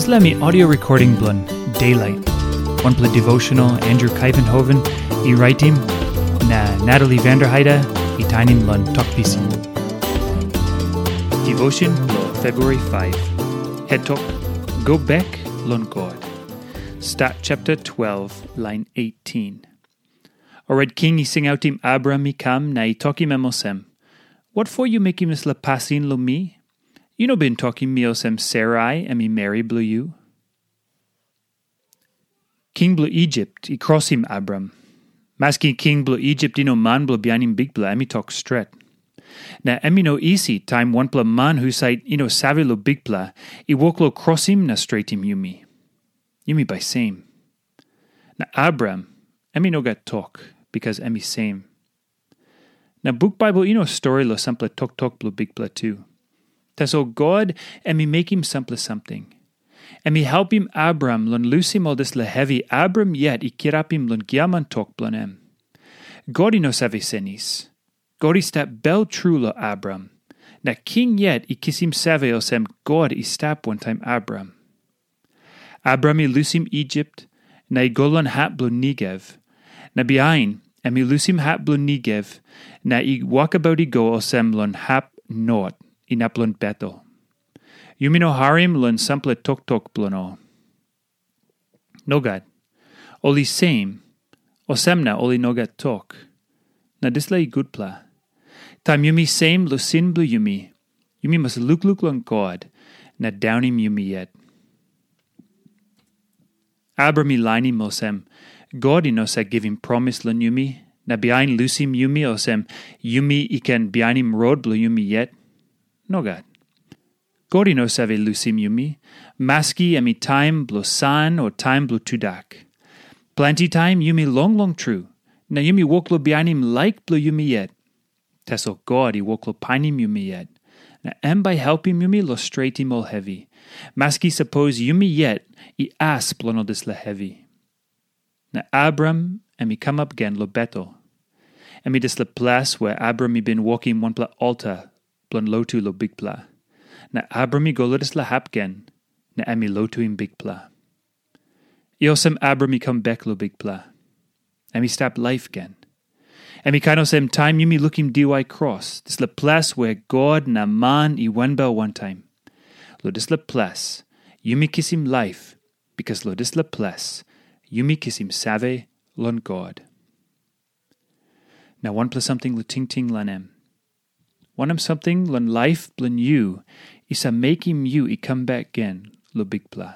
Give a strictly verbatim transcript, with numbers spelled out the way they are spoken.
Dispela mi audio recording bilong Daylight, wanpela devotional Andrew Kuyvenhoven i raitim, na Natalie Vanderheide i tainim long Tok Pisin. Devotion bilong February five. Het tok, Go Bek Long God. Stat chapter twelve, line eighteen. Orait king i singautim Abram i kam na i tokim em olsem, Wat for yu mekim dispela pasin long mi? Yu no bin tokim mi olsem Sarai em i meri bilong yu? King bilong Ijipt i krosim Abram. Maski king bilong Ijipt i no man bilong bihainim Bikpela, em i tok stret. Na em i no isi taim wanpela man husat i no save long Bikpela i wok long krosim na stretim yumi. Yumi bai sem. Na Abram, em i no gat tok, bikas em i sem. Na buk Baibel i no stori long sampela toktok bilong Bikpela tu. Tasol God em i mekim sampela samting. Em i helpim Abram long lusim ol dispela hevi Abram yet i kirapim long giaman tok bilong em. God i no save senis. God i stap bel tru long Abram. Na king yet i kisim save olsem God i stap wantaim Abram. Abram i lusim Ijipt, na i go long hap bilong Negev. Na bihain, em i lusim hap bilong Negev, na i wokabaut i go olsem long hap not, inap long Betel. Yumi no harim long sampela toktok bilong ol. Nogat. Ol i sem, olsem na ol i no gat tok. Na dispela i gutpela. Taim yumi sem long sin bilong yumi, yumi mas lukluk long God na daunim yumi yet. Abram i lainim olsem, God i no save givim promis long yumi, na bihain lusim yumi olsem, yumi i ken bihainim rot bilong yumi yet. Nogat. God i no save lusim yumi, maski em i taim bilong san o taim bilong tudak. Planti taim yumi longlong tru, na yumi wok long bihainim laik bilong yumi yet. Tasol God i wok long painim yumi yet, na em bai helpim yumi long stretim ol hevi, maski sapos yumi yet i as bilong ol dispela hevi. Na Abram em i kamap gen long Betel. Em i dispela ples wea Abram i bin wokim wanpela alta bilong lotu long Bikpela. Na Abram i go long dispela hap gen, na em i lotuim Bikpela. I olsem Abram i kam bek long Bikpela. Em i stap laip gen. Em i kain olsem taim yumi lukim diwai kros, dispela ples wea God na man i wanbel wantaim. Long dispela ples, yumi kisim laip, bikas long dispela ples, yumi kisim save long God. Na wanpela samting long tingting long em. Wanem samting long laip bilong yu i save mekim yu i kam bek gen long Bikpela?